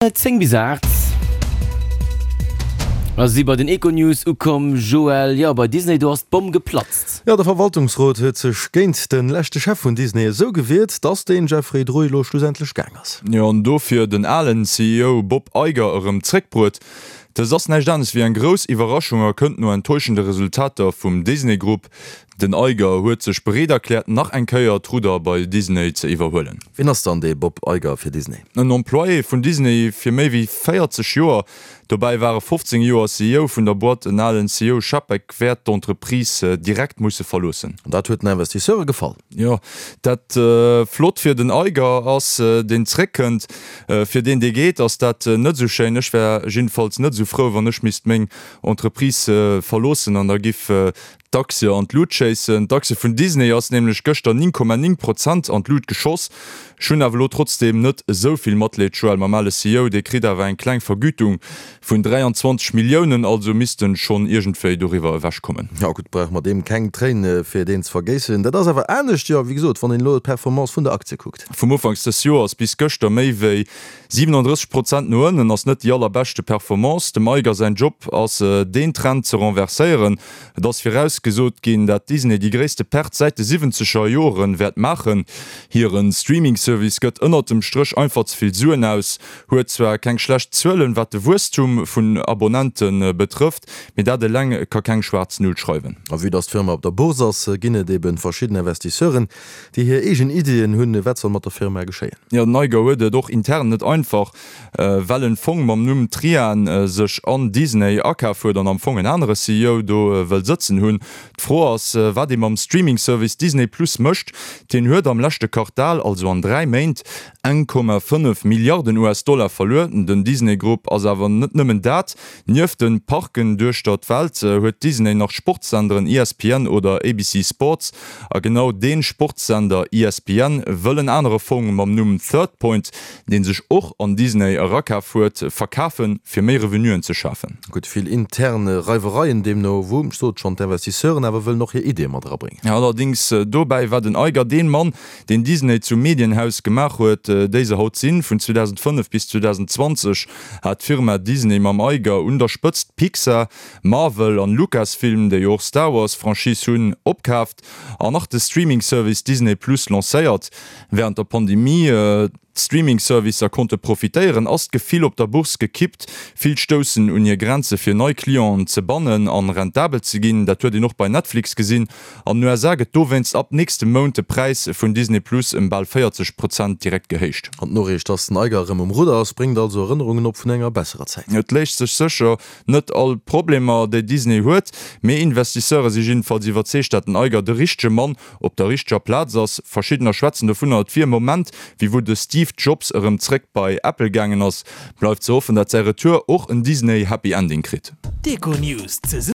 10 bis 8 a si bei den Econews ukomm. Joël, jo bei Disney do ass d'Bomm geplatzt. Jo, de Verwaltungsrot huet sech géint de leschte Chef vun Disney esou gewiert, dass den Jeffrey Drui elo schlussendlech gaang ass. Jo, an dofir den alen CEO Bob Iger erëm zréckbruet. Dëst ass näischt anescht wéi eng grouss Iwwerraschung a kënnt no enttäuschende Resultater vum Disney Grupp. Den Iger huet sech bereet erkläert, nach eng Kéier d'Rudder bei Disney ze iwwerhuelen. Wien ass dann dee Bob Iger fir Disney? En Employé vun Disney fir méi wéi 40 Joer. Dobäi war e 15 Joer CEO vun der Boîte. En alen CEO Chapek wäert d'Entreprise direkt musse verloossen. An dat huet den Investisseure gefall. Jo, dat flott fir den Iger ass, deen zréckkënnt. Fir deen, dee geet, ass dat net esou schéin. Ech wär jiddefalls net esou frou, wann ech misst meng Entreprise verloossen an da giff D'Aktie an d'Lut schéissen. D'Aktie vun Disney ass nämlech gëschter 9,9 Prozent an d'Lut geschoss. Ech hunn awer elo trotzdeem net esou vill Matleed, Joël, mam ale CEO. Dee kritt awer eng kleng Vergütung vun 23 Milliounen, also misst en schonn iergendwéi doriwwer ewech kommen. Jo gutt, brauche mer deem keng Tréin fir deen ze vergéissen. Dat ass awer anescht, jo wéi gesot, wann een elo d'Performance vun der Aktie kuckt. Vum Ufanks dës Joers bis gëschter méi wéi 37 Prozent no ënnen ass net déi allerbeschte Performance. Dem Iger säin Job ass deen Trend ze renverséieren. Et ass virausgesot ginn, dat Disney déi gréisste Perte säit de siwwenzeger Joren wäert maachen. Hiren Streaming-Service gëtt ënnert dem Stréch einfach ze vill Suen aus, huet zwar keng schlecht Zuelen wat de Wuesstum vun Abonnente betrëfft, mee dat eleng ka keng schwaarz Null schreiwen. A vue dass d'Firma op der Bourse ass, ginn et eben verschidden Investisseuren, déi hir eegen Iddien hunn, wat soll mat der Firma geschéien. Jo, den Iger huet et och intern net einfach. Well en Fong mam Numm Trian sech an Disney akaf huet an am Fong en anere CEO do wëll sëtzen hunn. D'Fro ass, wat ee mam Streaming-Service Disney Plus mécht. Deen huet am leschte Quartal, also an 3 Méint, 1,5 Milliarden US-Dollar verluer. Den Disney Grupp ass awer net nëmmen dat. Nieft de Parken duechter d'Welt huet Disney nach Sportssenderen ESPN oder ABC Sports. A genau dee Sportssender ESPN wëll en anere Fong mam Numm Third Point, deen sech och an Disney erakaf huet, verkafen, fir méi Revenuen ze schafen. Gutt, vill intern Reiwereien deemno wou, ech sot schonn, d'Investisseuren awer wëllen och hir Ideeë mat erabréngen. Allerdings dobäi war den Iger deen Mann, deen Disney zum Medienhaus gemaach huet, déi se haut sinn. Vun 2005 bis 2020 hat d'Firma Disney mam Iger un der Spëtzt Pixar, Marvel an Lucasfilm, déi jo och Star Wars Franchise hunn, opkaaft an nach de Streaming Service Disney Plus lancéiert. Wärend der Pandemie d'Streaming-Servicer konnte profitéieren, ass d'Gefill op der Bourse gekippt. Vill stoussen un hir Grenze fir nei Clienten ze bannen an rentabel ze ginn. Dat huet een och bei Netflix gesinn. An den USA gëtt dowéinst ab nächstem Mount de Präis vun Disney Plus ëm bal 40 Prozent direkt gehéicht. An d'Noriicht, dass den Iger erëm um Rudder ass, bréngt also Erënnerungen op vun enger besserer Zäit. Et léist sech sécher net all Problemer, déi Disney huet, mee Investisseure si jiddefalls iwwerzeegt, dat den Iger de richtege Mann op der richteger Plaz ass. Verschiddener schwätzen dovunner, et wier e Moment, wéi wou de Steve Jobs erëm zréck bei Apple gaangen ass. Bleift ze hoffen, dat säi Retour och en Disney Happy Ending kritt. D'Econews.